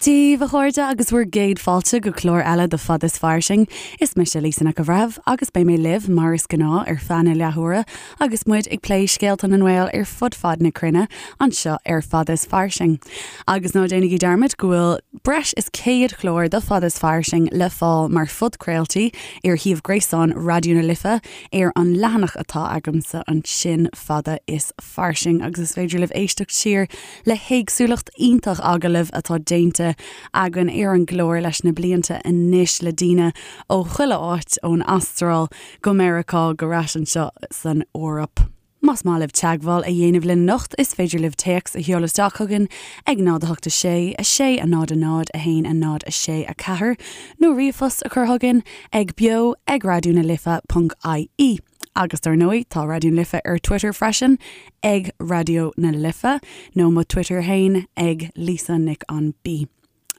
Dia daoibh, a chairde, agus bhur gcéad fáilte go clár eile de Fada is Fairsing. Is mise Lisa Nic an Bhreithimh agus beidh mé libh, mar is gnáth, ar feadh na leathuaire agus muid ag plé scéalta na nGael ar fud fad na cruinne anseo ar Fada is Fairsing. Agus ná déanaigí dearmad go bhfuil breis is 100 clár de Fada is Fairsing le fáil mar phodchraoltaí ar shuíomh gréasáin Raidió na Life ar an leathanach atá agamsa ansin, Fada is Fairsing, agus is féidir libh éisteacht siar le héagsúlacht iontach agallamh atá déanta againn ar an gclár leis na blianta anois le daoine ó chuile áit, ón Astráil go Meiriceá go ar ais anseo san Eoraip. Más maith libh teagmháil a dhéanamh linn anocht, is féidir libh téacs a sheoladh isteach chugainn ag 0 8 6 6 0 0 1 0 6 4 nó ríomhphost a chur chugainn ag beo ag raidió na life ponc ie. Agus dar ndóigh, tá Raidió na Life ar Twitter freisin, ag Raidió na Life, nó mo Twitter fhéin, ag Lisa Nic an B.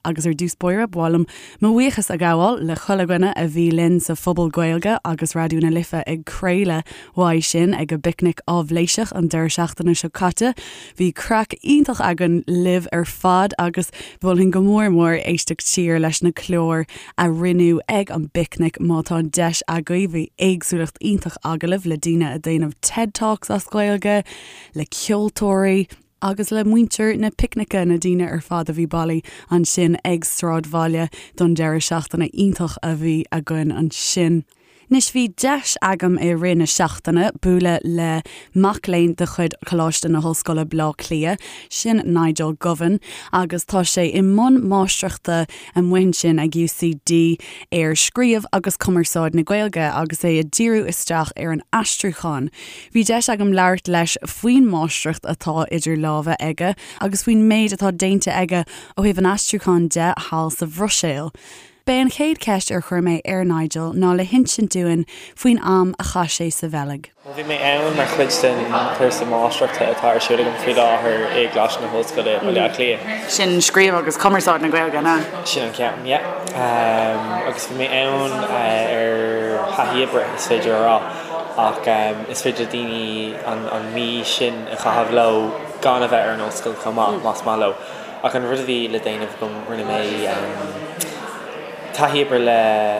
Agus ar dtús báire, ba mhaith liom mo bhuíochas a ghabháil le chuile dhuine a bhí linn sa Phuball Gaeilge agus Raidió na Life ag craoladh uaidh sin ag an bPicnic Áibhléiseach an deireadh seachtaine seo caite. Bhí craic iontach againn libh ar fad agus mholfainn go mór mór éisteacht siar leis na cláir a rinneadh ag an bPicnic má tá an deis agaibh. Bhí éagsúlacht iontach agallamh le daoine a déanamh TED Talks as Gaeilge, le ceoltóirí, agus le muintir na Picnice, na daoine ar fad a bhí bailithe ansin ag Sráidbhaile don deireadh seachtaine iontach a bhí againn ansin. Anois bhí deis agam i rith na seachtaine bualadh le mac léinn de chuid Choláiste na hOllscoile Bleá Cliath, sin Nigel Govan, agus tá sé i mbun máistreachta amuigh ansin ag UCD ar scríobh agus cumarsáid na Gaeilge agus é ag díriú isteach ar an aistriúchán. Bhí deis agam labhairt leis faoin máistreacht atá idir lámha aige agus faoin méid atá déanta aige ó thaobh an aistriúcháin de thall sa Bhruiséil. B'é an chéad cheist ar chuir mé ar Nigel ná le hinsint dúinn faoin am a chaith sé sa Bheilg. Bhuel, bhí mé ann mar chuid den chúrsa máistreachta atá ar siúl agam faoi láthair i gColáiste na hOllscoile, Baile Átha Cliath. Sin Scríobh agus Cumarsáid na Gaeilge, an ea? Sin an ceann, yeah. Agus bhí mé ann ar thaithí oibre, is féidir a rá, ach is féidir le daoine an mhí sin a chaitheamh leo gan a bheith ar an ollscoil chomh maith, más maith leo. Ach an rud a bhí le déanamh agam, rinne mé taithí oibre le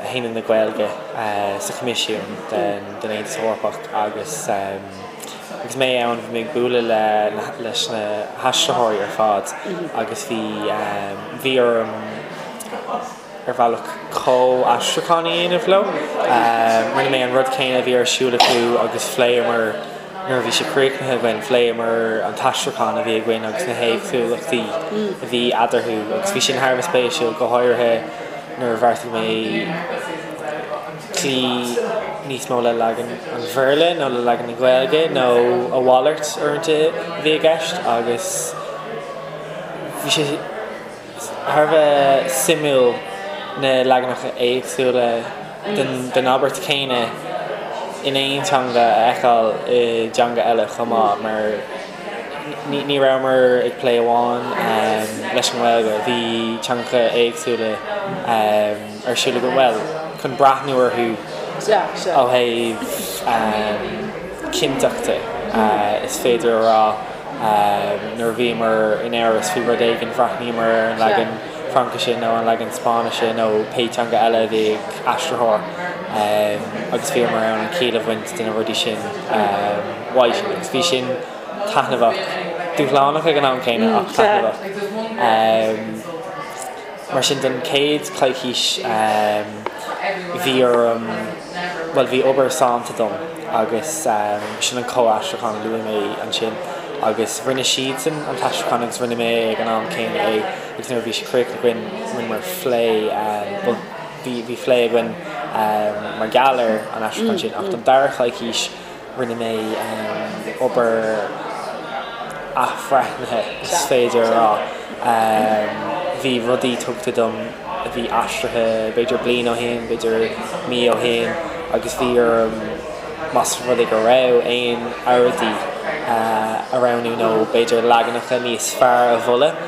hAonad na Gaeilge sa Choimisiún den Aontas Eorpach agus agus mé ann bhí mé ag bualadh le leis na haistritheoirí ar fad agus bhí bhí orm ar bhealach comh-aistriúchán a dhéanamh leo. Rinne mé an rud céanna a bhí ar siúl acu agus phléamar, nuair a bhí sé críochnaithe againn, phléamar an t-aistriúchán a bhí againn agus na héagsúlachtaí a bhí eadarthu agus bhí sin thar a bheith spéisiúil, go háirithe nuair a bheartaigh mé cloí níos mó le leagan an Bhéarla nó le leagan na Gaeilge nó a mhalairt uaireanta a bhí i gceist agus bhí sé thar a bheith suimiúil na leaganacha éagsúla den abairt chéanna in aon teanga a fheiceáil i dteanga eile chomh maith mar ní rabhamar ag plé amháin leis an nGaeilge, bhí teangacha éagsúla ar siúl againn, bhuel, chun breathnú orthu ó thaobh cinnteachta is féidir a rá. Nuair a bhíomar in amhras faoi rud éigin, bhreathnaíomar ar an leagan Fraincise nó an leagan Spáinnise nó pé teanga eile a bhí ag aistritheoir agus bhíomar in ann an chiall a bhaint de na rudaí sin uaidh sin agus bhí sin taitneamhach, dúshlánach ag an am céanna ach taitneamhach. Mar sin don chéad choicís bhí orm, bhuel bhí obair sannta dom agus sin an comh-aistriúchán a luaigh mé ansin agus rinne siadsan an t-aistriúchán agus rinne mé ag an am céanna é agus nuair a bhí sé críochnaithe againn rinneamar phlé, bhuel bhí bhí phlé againn mar gheall ar an aistriúchán sin ach don dara choicís Rinne mé obair athbhreithnithe, is féidir a rá. Bhí rudaí tugtha dom a bhí aistrithe b'fhéidir bliain ó shin, b'fhéidir mí ó shin agus bhí orm, más rud é go raibh aon earráidí a roghnú nó b'fhéidir leaganacha níos fearr a mholadh,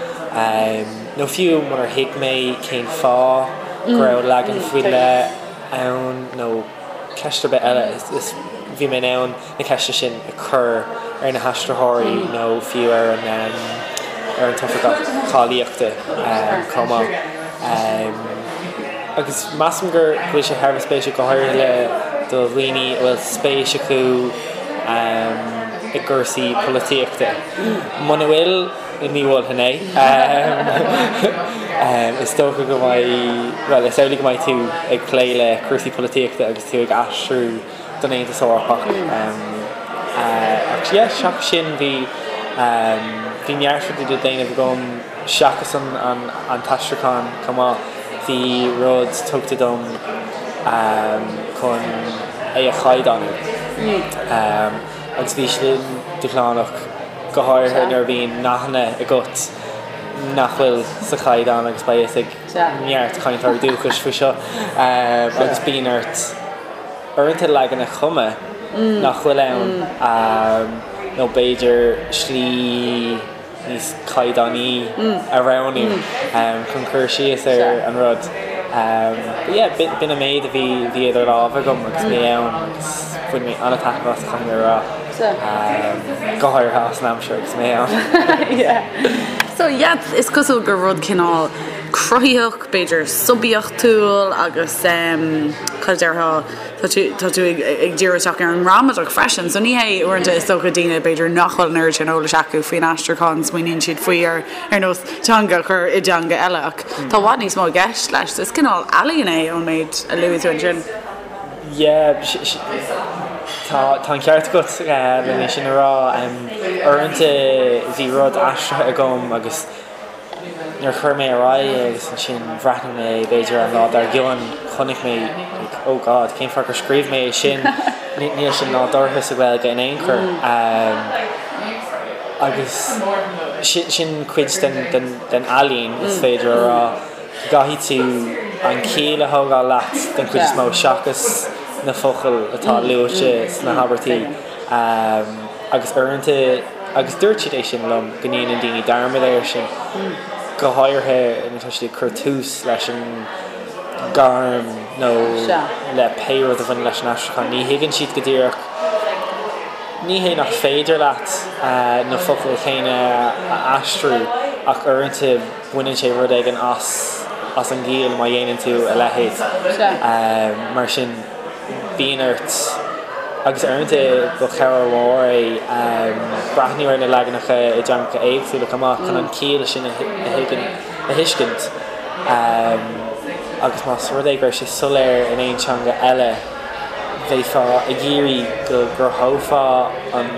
nó fiú munar thuig mé cén fáth go raibh leagan faoi leith ann nó. ceist ar bith eile, is bhí mé in ann na ceisteanna sin a chur ar na haistritheoirí nó fiú ar an. ar an tOifigeach Cáilíochta chomh maith. Agus measaim go bhfuil sé thar a bheith spéisiúil, go háirithe le do dhaoine a bhfuil spéis acu i gcúrsaí polaitíochta. Muna bhfuil, ní mholfainn é. Is dócha go mbeidh, bhuel, is amhlaidh go mbeidh tú ag plé le cúrsaí polaitíochta agus tú ag aistriú don Aontas Eorpach. Ach yeah, seachas sin bhí, bhí neart rudaí le déanamh agam seachas an t-aistriúchán chomh maith. Bhí rud tugtha dom chun é a chaighdeánú agus bhí sin dúshlánach, go háirithe nuair a bhíonn nathanna agat nach bhfuil sa chaighdeán agus beidh fhios ag neart cainteoirí dúchais faoi seo agus bíonn ort uaireanta leagan a chumadh nach bhfuil ann nó b'fhéidir slí níos caighdeánaí a roghnú chun cur síos ar an rud. But yeah, b'in an méid a bhí bhí idir lámha agam agus mé ann agus bhain mé an-taitneamh as caithfidh mé a rá. Go háirithe as an aimsir agus mé ann. So yeah, is cosúil gur rud cineál cruthaitheach, b'fhéidir suibiachtúil agus cad a déarfá, tá tú, tá tú ag, ag díriú isteach ar an ngramadach freisin. So ní hé uaireanta is dócha daoine b'fhéidir nach bhfuil an oiread sin eolais acu faoin aistriúchán, smaoiníonn siad faoi ar, ar nós teanga a chur i dteanga eile ach tá i bhfad níos mó i gceist leis. So is cineál ealaíon é ón méid a luaigh tú ansin. Yeah, tá, tá an ceart agat le é sin a rá. Uaireanta bhí rud aistrithe agam agus nuair a chuir mé ar aghaidh é agus ansin bhreathnaigh mé b'fhéidir an lá dár gcionn, chonaic mé like oh God, cén fáth gur scríobh mé é sin? Níl sin nádúrtha sa Ghaeilge in aon chor. Agus sin, sin cuid den, den, den ealaín is féidir a rá. Caithfidh tú an chiall a thógáil leat den chuid is mó seachas na focail atá luaite sna habairtí. Agus uaireanta, agus dúirt siad é sin liom, go ndéanann daoine dearmad air sin, go háirithe nuair atá siad ag cur tús leis an ngairm nó le pé rud a bhaineann leis an aistriúchán. Ní thuigeann siad go díreach, ní hé nach féidir leat na focail chéanna a aistriú ach uaireanta, baineann sé rud éigin as as an gciall má dhéanann tú a leithéid. Mar sin, bíonn ort, agus uaireanta ba chabhair mhór é breathnú ar na leaganacha i dteangacha éagsúla chomh maith chun an chiall sin a a thuiscint. Agus más rud é go raibh sé soiléir in aon teanga eile, bheifeá ag iarraidh go gcruthófá an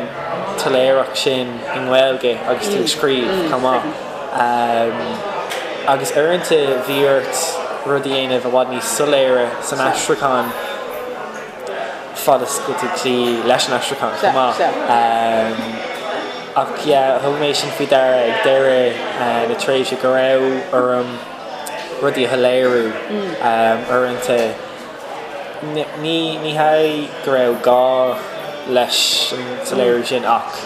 tsoiléireacht sin i nGaeilge agus tú ag scríobh chomh maith. Agus uaireanta bhí ort rud a dhéanamh i bhfad níos soiléire san aistriúchán fad is go bhfuil tú ag cloí leis an aistriúchán chomh maith. Ach yeah, thug mé sin faoi deara ag deireadh na tréimhse go raibh orm rudaí a shoiléiriú uaireanta. Ní hé go raibh gá leis an soiléiriú sin ach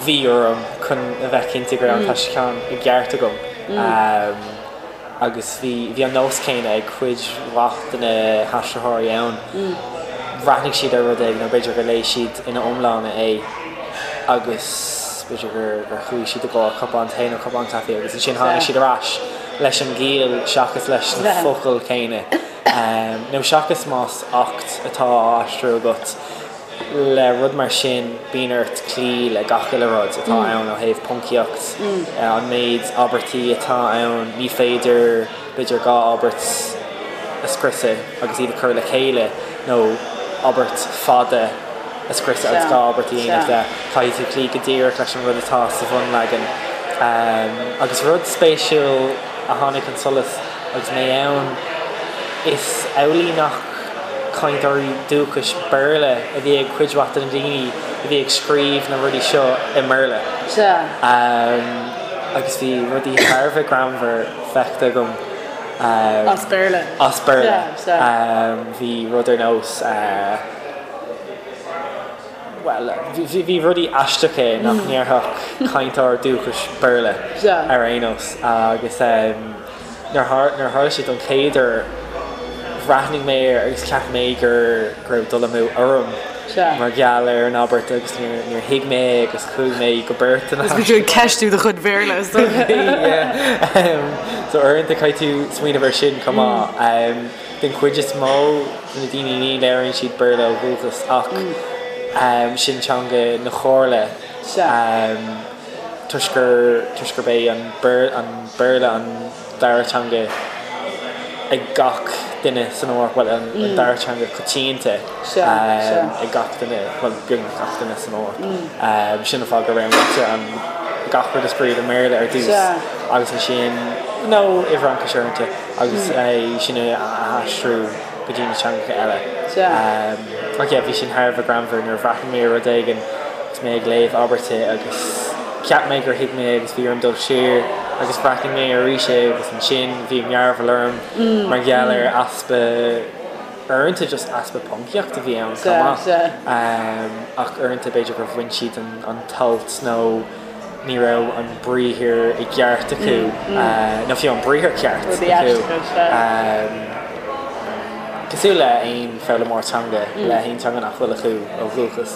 bhí orm chun a bheith cinnte go raibh an t-aistriúchán i gceart agam agus bhí an nós céanna ag cuid mhaith de na haistritheoirí ann. Bhreathnaigh siad ar rud éigin nó b'fhéidir gur léigh siad ina iomláine é agus b'fhéidir gur chuaigh siad i gcomhair cupán tae nó cupán caife agus ansin tháinig siad ar ais leis an gciall seachas leis na focail chéanna. Nó seachas más acht atá á aistriú agat, le rud mar sin bíonn ort cloí le gach uile rud atá ann ó thaobh poncaíocht, an méid abairtí atá ann, ní féidir b'fhéidir 2 abairt a scriosadh agus iad a chur le chéile nó abairt fada a scriosadh agus 2 abairt a dhéanamh de, caithfidh tú cloí go díreach leis an rud atá sa bhunleagan. Agus rud spéisiúil a tháinig chun solais, Agus mé ann, is amhlaidh nach cainteoirí dúchais Béarla a bhí ag cuid mhaith de na daoine a bhí ag scríobh na rudaí seo i mBéarla. Agus bhí rudaí thar a bheith greannmhar feicthe agam. As Béarla. As Béarla. Bhí rud ar nós. Bhuel, bhí rudaí aisteacha nach ndéarfadh cainteoir dúchais Béarla ar aon nós agus nuair a tharla sé don chéad uair, bhreathnaigh mé air agus cheap mé gur go raibh dul amú orm. mar gheall ar an abairt agus níor thuig mé é agus chuaigh mé go beirteanna. Agus bhí tú ag ceistiú do chuid Bhéarla is dócha. Bhí, yeah. So uaireanta caithfidh tú smaoineamh ar sin chomh maith. Den chuid is mó de na daoine ní labhraíonn siad Béarla ó dhúchas ach sin teanga na Comhairle toisc gur toisc gurb é an Béarla an dara teanga ag gach duine san Eoraip, bhuel an dara teanga coitianta ag gach duine, bhuel beagnach gach duine san Eoraip. Sin an fáth go roghnaítear an gach rud a scríobh i mBéarla ar dtús agus ansin, nó i bhFraincis uaireanta, agus é sin a aistriú go dtí na teangacha eile. Ach yeah, bhí sin thar a bheith greannmhar nuair a bhreathnaigh mé ar rud éigin agus mé ag léamh abairte agus cheap mé gur thuig mé agus bhí orm dul siar agus bhreathnaigh mé arís é agus ansin bhí mearbhall orm mar gheall ar easpa uaireanta just easpa poncaíocht a bhí ann chomh maith. Ach uaireanta b'fhéidir gur bhain siad an t-alt nó ní raibh an briathar i gceart acu, nó fiú an briathar ceart acu. Cosúil le aon foghlaimeoir teanga, le haon teanga nach bhfuil acu ó dhúchas.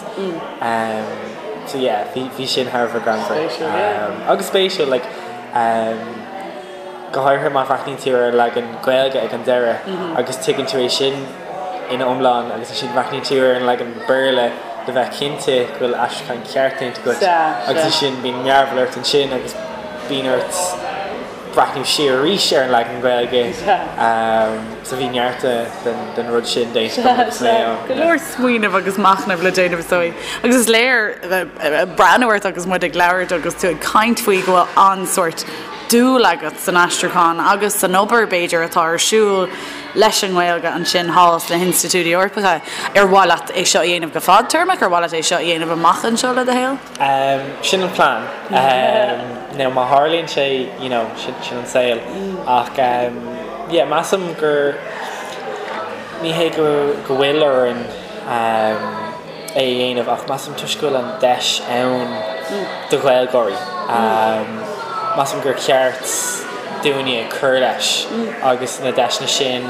So yeah, bhí sin thar a bheith greannmhar. Agus spéisiúil, like, go háirithe má bhreathnaíonn tú ar an leagan Gaeilge ag an deireadh agus tuigeann tú é sin ina iomlán agus ansin breathnaíonn tú ar an leagan Béarla le bheith cinnte go bhfuil aistriúchán ceart déanta agat agus ansin bíonn mearbhall ort ansin agus bíonn ort breathnú siar arís ar an leagan Gaeilge. So bhí neart den rud sin déanta agam agus mé ann. Go leor smaoineamh agus machnaimh le déanamh is dóigh. Agus is léir breathnú ort agus muid ag labhairt agus tú ag caint faoi go bhfuil an-sórt dúil agat san aistriúchán agus san obair b'fhéidir atá ar siúl leis an nGaeilge ansin thall sna hinstitiúidí Eorpacha. Ar mhaith leat é seo a dhéanamh go fadtéarmach? Ar mhaith leat é seo a dhéanamh amach anseo le do shaol? Sin an plean. Now má tharlaíonn sé, you know, sin an saol. Ach yeah, measaim gur, ní hé go bhfuil orainn é a dhéanamh ach measaim toisc go bhfuil an deis ann do Ghaeilgeoirí, measaim gur cheart dúinne cur leis agus na deiseanna sin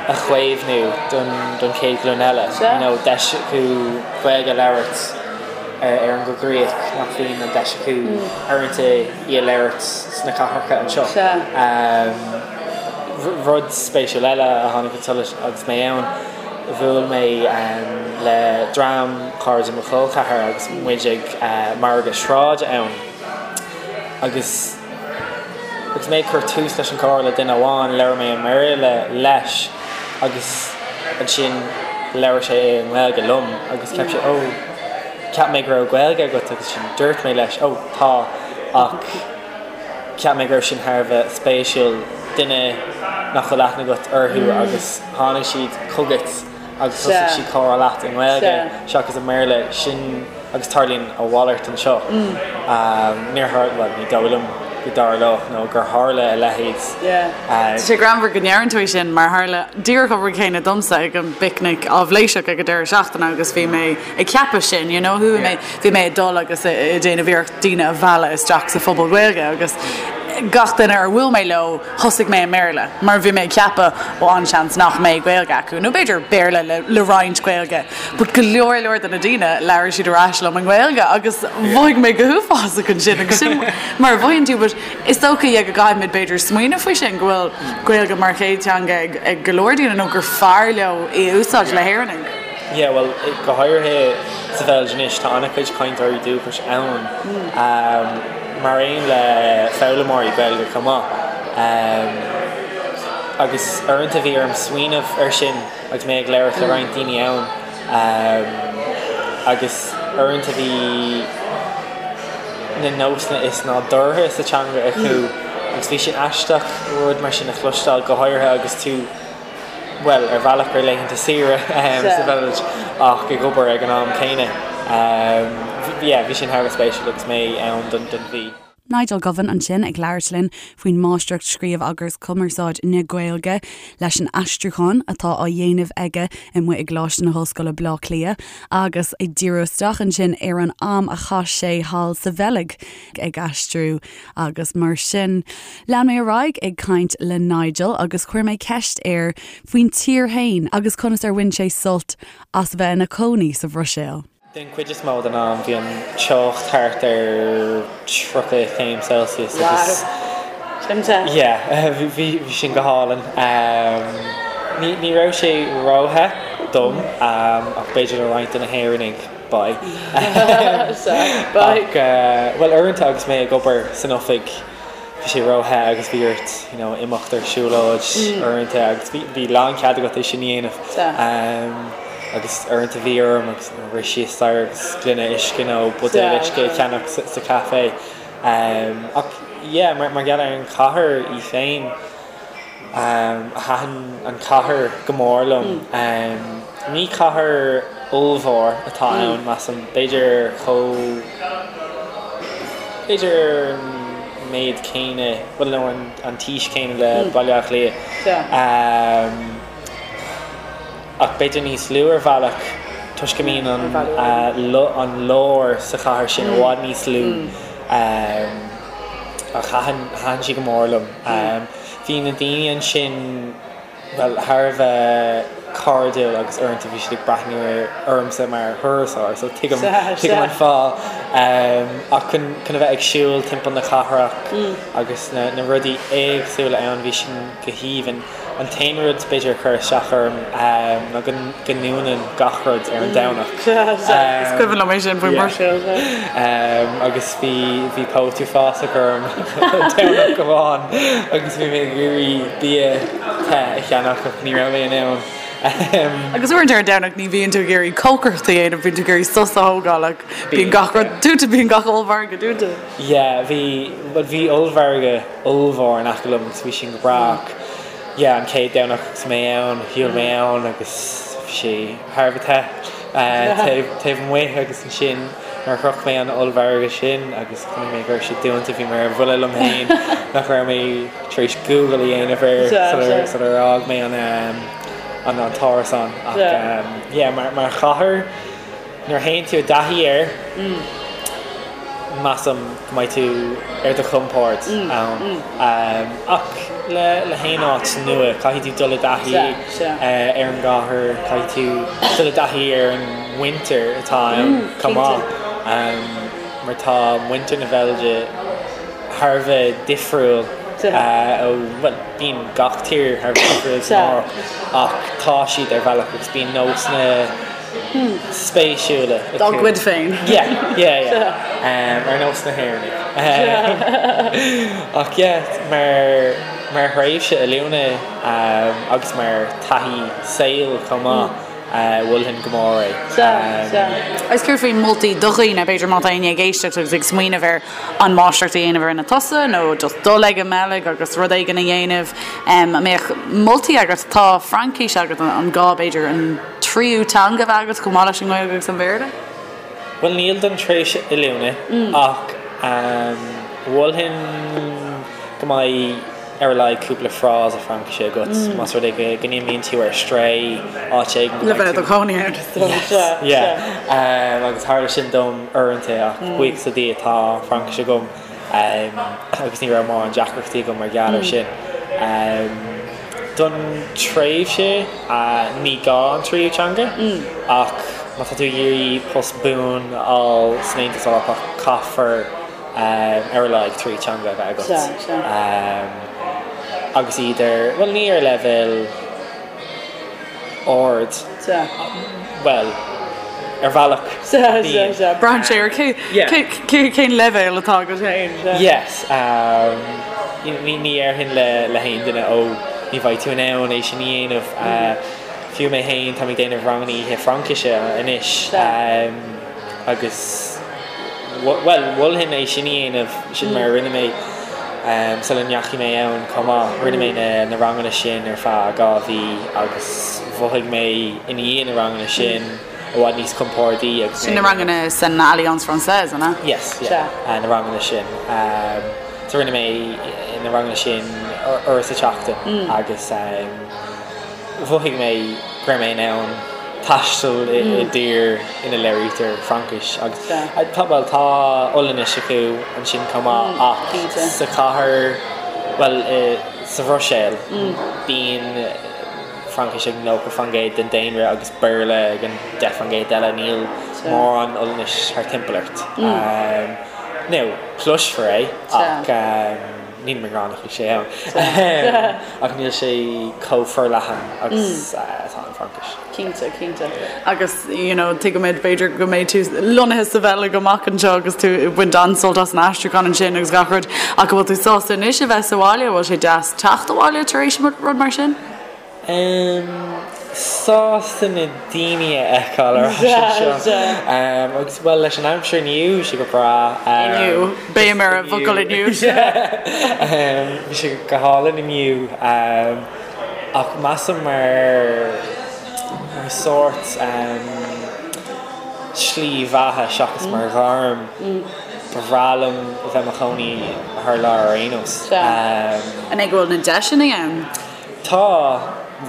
a chaomhnú don chéad ghlúin eile. You know, deis acu Gaeilge a labhairt ar an gcoigríoch nach bhíonn an deis acu uaireanta í a labhairt sna cathracha anseo. Rud spéisiúil eile a tháinig chun solais agus mé ann, Bhuail mé le dream cairde mo chol ceathar agus muid ag margadh sráide ann agus agus mé ag cur tús leis an chomhrá le duine amháin, labhair mé i mBéarla leis agus ansin labhair sé i nGaeilge liom agus cheap sé, oh, cheap mé go raibh Gaeilge agat agus ansin dúirt mé leis, oh, tá ach. Cheap mé go raibh sin thar a bheith spéisiúil, duine nach bhfuil aithne agat orthu agus tháinig siad chugat agus thosaigh siad comhrá leat i nGaeilge seachas i mBéarla, sin agus tarlaíonn a mhalairt anseo. Níor tharla, bhuel ní dóigh liom go dtarlódh nó gur tharla a leithéid. Tá sé greannmhar go ndeireann tú é sin mar tharla díreach an rud céanna domsa ag an bpicnic áibhléiseach ag an deireadh seachtaine agus bhí mé ag ceapadh sin, you know, bhí mé Bhí mé ag dul agus ag déanamh iarracht daoine a mhealladh isteach sa phobal Gaeilge agus gach duine ar bhuail mé leo thosaigh mé i mBéarla mar bhí mé ag ceapadh ó an-seans nach mbeidh Gaeilge acu nó b'fhéidir Béarla le le roinnt Gaeilge but go leor leor de na daoine labhair siad ar ais liom i nGaeilge agus mhothaigh mé go huafásach ansin agus sin mar a mhothaíonn tú but is dócha yeah go gcaithfimid b'fhéidir smaoineamh faoi sin go bhfuil Gaeilge mar chéad teanga ag ag go leor daoine nó gur fearr leo í a úsáid le hÉireannaigh. Yeah bhuel go háirithe sa Bheilg anois tá an-chuid cainteoirí dúchais ann mar aon le foghlaimeoirí Gaeilge chomh maith. Agus uaireanta bhí orm smaoineamh air sin agus mé ag labhairt le roinnt daoine ann agus uaireanta bhí na nósanna is nádúrtha sa teanga acu agus bhí sin aisteach rud mar sin a chloisteáil go háirithe agus tú bhuel, ar bhealach ar laethanta saoire sa Bheilg ach ag obair ag an am céanna. Yeah, bhí sin thar a bheith spéisiúil agus mé ann don mhí. Nigel Govan ansin ag labhairt linn faoin Máistreacht Scríobh agus Cumarsáid na Gaeilge leis an aistriúchán atá á dhéanamh aige amuigh i gColáiste na hOllscoile Bleá Cliath agus ag díriú isteach ansin ar an am a chaith sé thall sa Bheilg ag aistriú agus mar sin. Lean mé ar aghaidh ag caint le Nigel agus chuir mé ceist air faoin tír fhéin agus conas ar bhain sé sult as bheith ina chónaí sa Bhruiséil. Den chuid is mó den am bhí an teocht thart ar 30 céim Celsius agus Sin te. yeah bhí sin go hálainn. Ní ní raibh sé róthe dom ach b'fhéidir le roinnt de na hÉireannaigh bye. Bye. Ach bhuel uaireanta agus mé ag obair san oifig bhí sé róthe agus bhí ort you know imeacht ar siúlóid uaireanta agus bhí bhí lánchead agat é sin a dhéanamh. Agus uaireanta bhí orm agus rith síos staighre agus gloine uisce nó buidéal uisce a cheannach sa sa café. Ach yeah mar mar gheall ar an chathair í féin, Thaitin an chathair go mór liom. Ní cathair ollmhór atá ann, measaim. B'fhéidir chomh, b'fhéidir an méid céanna, bhuel nó an t-aois céanna le Baile Átha Cliath. Ach b'fhéidir níos lú ar bhealach toisc go mbíonn an an lár sa chathair sin i bhfad níos lú. Ach thaitin, thaitin sí go mór liom. Bhí na daoine ansin, bhuel, thar a bheith cairdiúil agus uaireanta bhí siad ag breathnú ormsa mar thurasóir, so tuigim, tuigim an fáth. Ach chun, chun a bheith ag siúl timpeall na cathrach agus na, na rudaí éagsúla ann, bhí sin go haoibhinn. An t-aon rud, b'fhéidir, a chuir isteach orm ná go ndúnann gach rud ar an Domhnach. Is cuimhin liom é sin faoin mBruiséil. Agus bhí bhí póit uafásach orm Domhnach amháin agus bhí mé ag iarraidh bia te a cheannach ach ní raibh mé in ann. Agus uaireanta ar an Domhnach ní bhíonn tú ag iarraidh cócaireacht a dhéanamh, bíonn tú ag iarraidh sos a thógáil ach bíonn gach rud dúnta, bíonn gach ollmhargadh dúnta. Yeah, bhí, bhuel bhí ollmhargadh ollmhór in aice liom agus bhí sin go breá ach yeah an chéad Domhnach agus mé ann, shiúil mé ann agus bhí sé thar a bheith te taobh taobh amuigh agus ansin nuair a shroich mé an ollmhargadh sin agus chonaic mé go raibh sé dúnta bhí mé ar buile liom féin nach raibh mé tar éis Google a dhéanamh air sular sular fhág mé an an an t-árasán ach yeah mar mar chathair Nuair a théann tú i dtaithí air, measaim go mbeidh tú ar do chompord ann. Ach le haon áit nua, caithfidh tú dul i dtaithí ar an gcathair, caithfidh tú dul i dtaithí ar an muintir atá ann chomh maith. Mar tá muintir na Beilge thar a bheith difriúil ó, bhuel, bíonn gach tír thar a bheith difriúil san Eoraip, ach tá siad ar bhealach agus bíonn nósanna spéisiúla acu. Dá gcuid féin. Yeah, yeah, yeah. Ar nós na hÉireannaigh. Ach yeah, mar, mar thréimhse oiliúna agus mar taithí saoil chomh maith, mholfainn go mór é. Sea, sea. Agus céard faoi moltaí do dhaoine, b'fhéidir má tá éinne ag éisteacht agus ag smaoineamh ar an máistreacht a dhéanamh a rinne tusa nó just dul ag an mBeilg agus rud éigin a dhéanamh, an mbeadh moltaí agat? Tá Fraincis agat, an gá b'fhéidir an tríú teanga a bheith agat chomh maith leis an nGaeilge agus an Béarla? Bhuel níl don tréimhse oiliúna ach mholfainn go mbeidh ar a laghad cúpla frása Fraincise agat más rud é go n-imíonn tú ar strae áit éigin go mbeidh tú. Le bheith i do chónaí ann is dócha. Yes, yeah. Agus tharla sin dom uaireanta ach buíochas le Dia tá Fraincis agam agus ní raibh mórán deacrachtaí agam mar gheall air sin. Don tréimhse, ní gá an tríú teanga ach má tá tú ag iarraidh post buan a fháil san Aontas Eorpach caithfear ar a laghad tríú teanga a bheith agat agus iad ar, bhuel ní ar leibhéal ard, bhuel ar bhealach bíonn. Braitheann sé ar cén leibhéal atá agat féin. Yes. Ní déarfainn le haon duine ó ní bheidh tú in ann é sin a dhéanamh. Fiú mé féin táim ag déanamh ranganna oíche Fraincise anois agus bhuel mholfainn é sin a dhéanamh, sin mar a rinne mé sula ndeachaigh mé ann chomh maith. Rinne mé na ranganna sin ar feadh 2 mhí agus mhothaigh mé i ndiaidh na ranganna sin. i bhfad níos compordaí agus Sin na ranganna san Alliance Française, an ea? Yes, yeah, na ranganna sin. So rinne mé na ranganna sin uair sa tseachtain agus mhothaigh mé go raibh mé in ann taisteal i dtír ina labhraítear Fraincis agus tá, bhuel, tá Ollainnis acu ansin chomh maith ach sa chathair, bhuel, sa Bhruiséil, bíonn Fraincis ag 90% den daonra agus Béarla ag an 10% eile, níl mórán Ollainnis thart timpeall ort. Now, cloisfear é ach níl mé ag rá nach bhfuil sé ann ach níl sé chomh forleathan agus atá an Fraincis. Cinnte, cinnte. Agus, you know, tuigimid b'fhéidir go mbeidh tú lonnaithe sa Bheilg amach anseo agus tú ag baint an-sult as an aistriúchán ansin agus gach rud ach an bhfuil tú sásta anois a bheith sa bhaile? An bhfuil sé deas teacht abhaile tar éis rud mar sin? Em, sásta na daoine a fheiceáil ar ais anseo. Em, agus bhuel leis an aimsir inniu, bhí sé go breá. Inniu, béim ar an bhfocal inniu. Em, bhí sé go hálainn inniu. Em, ach measaim mar, mar sórt, em, slí bheatha seachas mar ghairm, ba bhreá liom a bheith i mo chónaí thar lear ar aon nós. Em. An é go bhfuil na deiseanna ann? Tá,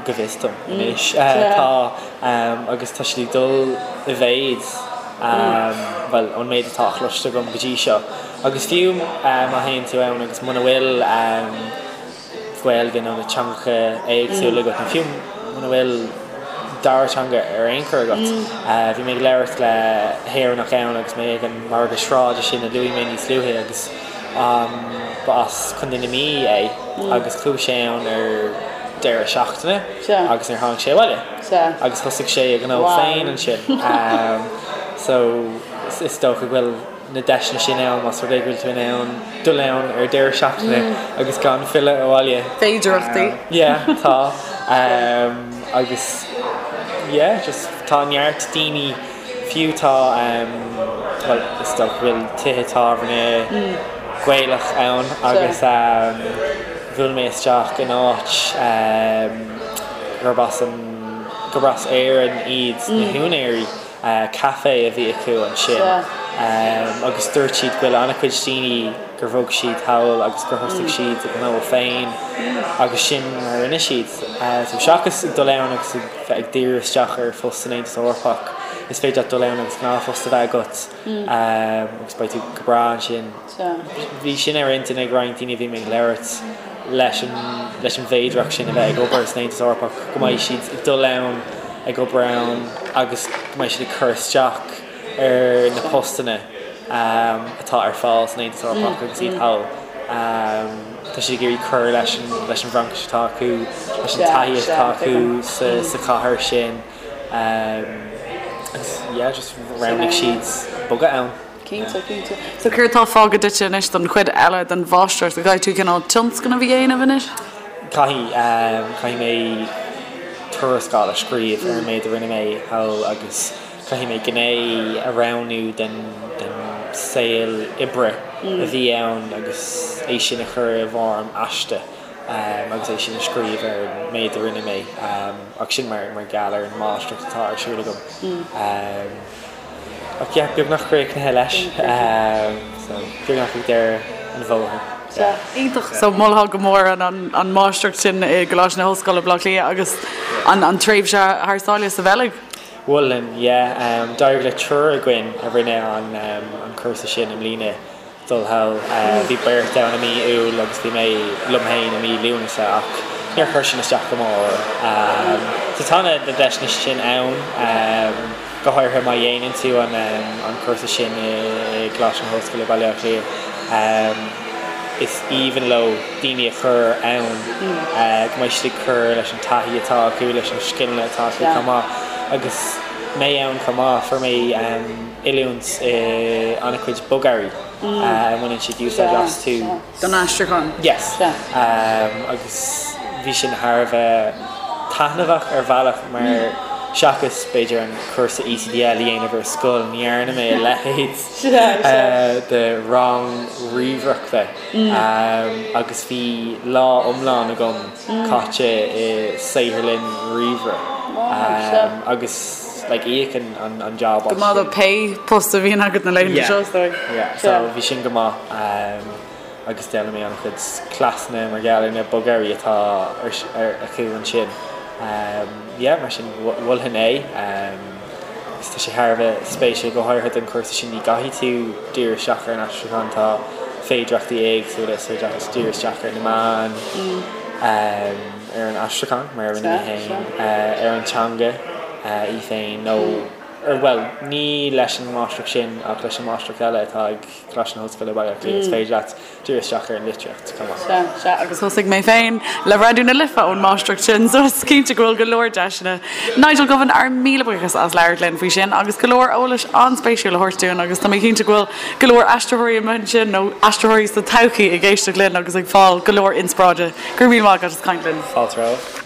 go bhfios dom anois, tá, agus tá siad ag dul i mhéid, bhuel, ón méid atá cloiste agam go dtí seo. Agus fiú má théann tú ann agus muna bhfuil Gaeilge nó na teangacha éagsúla agat, nó fiú muna bhfuil dara teanga ar aon chor agat, bhí mé ag labhairt le hÉireannach ann agus mé ag an margadh sráide sin a luaigh mé níos luaithe agus, Ba as Contae na Mí é agus chuaigh sé ann ar deireadh seachtaine agus níor tháinig sé abhaile agus thosaigh sé a ghnó féin ansin. So is dócha go bhfuil na deiseanna sin ann más rud é go bhfuil tú in ann dul ann ar deireadh seachtaine agus gan filleadh abhaile. Féidearthachtaí. Yeah, tá. Agus yeah, just tá neart daoine Fiú tá, bhuel, is dócha go bhfuil tithe tábhairne Gaelach ann agus bhuail mé isteach in áit gurb as an, gurb as Éirinn iad na húinéirí, caife a bhí acu ansin agus dúirt siad go bhfuil an-chuid daoine gur bhog siad thall agus gur thosaigh siad a ngnó féin agus sin mar a rinne siad. So seachas ag dul ann agus ag bheith ag díriú isteach ar phost san Aontas Eorpach, is féidir leat dul ann agus gnáthphost a bheith agat agus beidh tú go breá ansin. Bhí sin ar intinn ag roinnt daoine a bhí mé ag labhairt leis an leis an bhféidearthacht sin a bheith ag obair san Aontas Eorpach, go mbeidh siad ag dul ann, ag obair ann agus go mbeidh siad ag cur isteach ar na postanna atá ar fáil san Aontas Eorpach agus iad thall. Tá siad ag iarraidh cur leis an leis an bhFraincis atá acu, leis an taithí atá acu sa chathair sin agus yeah just roghnaigh siad bogadh ann. Cinnte, cinnte. So céard atá fágtha duitse anois don chuid eile den mháistreacht? An gcaithfidh tú cineál tionscnamh a dhéanamh anois? Caithfidh, caithfidh mé tuarascáil a scríobh ar an méid a rinne mé thall agus Caithfidh mé gné a roghnú den saol oibre a bhí ann agus é sin a chur i bhfoirm aiste agus é sin a scríobh ar an méid a rinne mé ach sin mar gheall ar an máistreacht atá ar siúl agam. Ach yeah, beagnach críochnaithe leis so beagnach ag deireadh an bhóthair. Sea, iontach. So mholfá go mór an máistreacht sin i gColáiste na hOllscoile, Baile Átha Cliath agus an tréimhse thar sáile sa Bheilg. Mholfainn, yeah. D'éirigh le triúr againn a rinne an cúrsa sin i mbliana dul thall. Bhí beirt ann i mí Iúil agus bhí mé liom féin i mí Lúnasa ach níor chuir sin isteach go mór orainn. So tá na deiseanna sin ann, go háirithe má dhéanann tú an cúrsa sin i gColáiste na hOllscoile, Baile Átha Cliath. Is aoibhinn leo daoine a chur ann, go mbeidh siad ag cur leis an taithí atá acu, leis na scileanna atá acu chomh maith. Agus mé ann chomh maith, fuair mé oiliúint i an-chuid bogearraí a mbaineann siad úsáid astu. Don aistriúchán. Yes. Agus bhí sin thar a bheith taitneamhach ar bhealach mar seachas b'fhéidir an cúrsa ECDL a dhéanamh ar scoil, ní dhearna mé a leithéid. de rang ríomhaireachta agus bhí lá iomlán agam caite i saotharlann ríomhaire agus. like íocann an an job as Go maith do pé post a bhíonn agat na laethanta seo, is dóigh. Yeah, so bhí sin go maith agus d'fhoghlaim mé an-chuid cleasanna mar gheall ar na bogearraí atá ar acu ansin. Yeah, mar sin mholfainn é agus tá sé thar a bheith spéisiúil go háirithe don chúrsa sin ní gcaithfidh tú díriú isteach ar an aistriúchán, tá féidireachtaí éagsúla is féidir leat díriú isteach ar na meáin, ar an aistriúchán mar a rinne mé féin, ar an teanga í féin nó ar, bhuel, ní leis an máistreacht sin ach leis an máistreacht eile atá ag Coláiste na hOllscoile Baile Átha Cliath, is féidir leat díriú isteach ar an litríocht chomh maith. Sea, sea, agus thosaigh mé féin le Raidió na Life ón máistreacht sin, so is cinnte go bhfuil go leor deiseanna. Nigel Govan, ár míle buíochas as labhairt linn faoi sin agus go leor eolais an-spéisiúil a thabhairt dúinn agus tá mé cinnte go bhfuil go leor aistritheoirí amuigh ansin nó aistritheoirí sa todhchaí ag éisteacht linn agus ag fáil go leor inspioráide. Go raibh míle maith agat as caint linn. Fáilte romhat.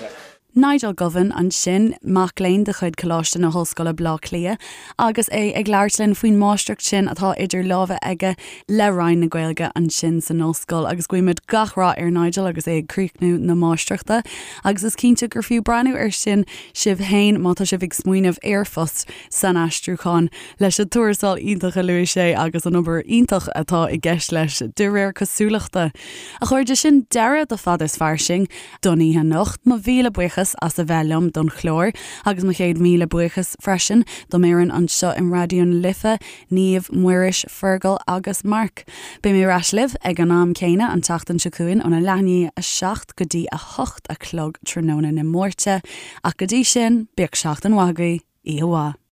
Nigel Govan ansin, mac léinn de chuid Coláiste na hOllscoile Bleá Cliath, agus é ag labhairt linn faoin máistreacht sin atá idir lámha aige le Roinn na Gaeilge ansin san ollscoil. Agus guímid gach rath ar Nigel agus é ag críochnú na máistreachta. Agus is cinnte gur fiú breathnú air sin sibh féin má tá sibh ag smaoineamh ar phost san aistriúchán, leis an tuarascáil iontach a luaigh sé agus an obair iontach atá i gceist leis, de réir cosúlachta. A chairde, sin deireadh do Fada is Fairsing. don oíche anocht. Mo mhíle buíochas as a bheith liom don chlár agus mo chéad mhíle buíochas freisin dom fhoireann anseo in Raidió na Life, Niamh, Muiris, Fergal agus Mark. Beidh mé ar ais libh ag an am céanna an tseachtain seo chugainn óna leath i ndiaidh 7 go dtí 8 a chlog tráthnóna na Máirte. Ach go dtí sin, bíodh seachtain mhaith agaibh. Oíche mhaith.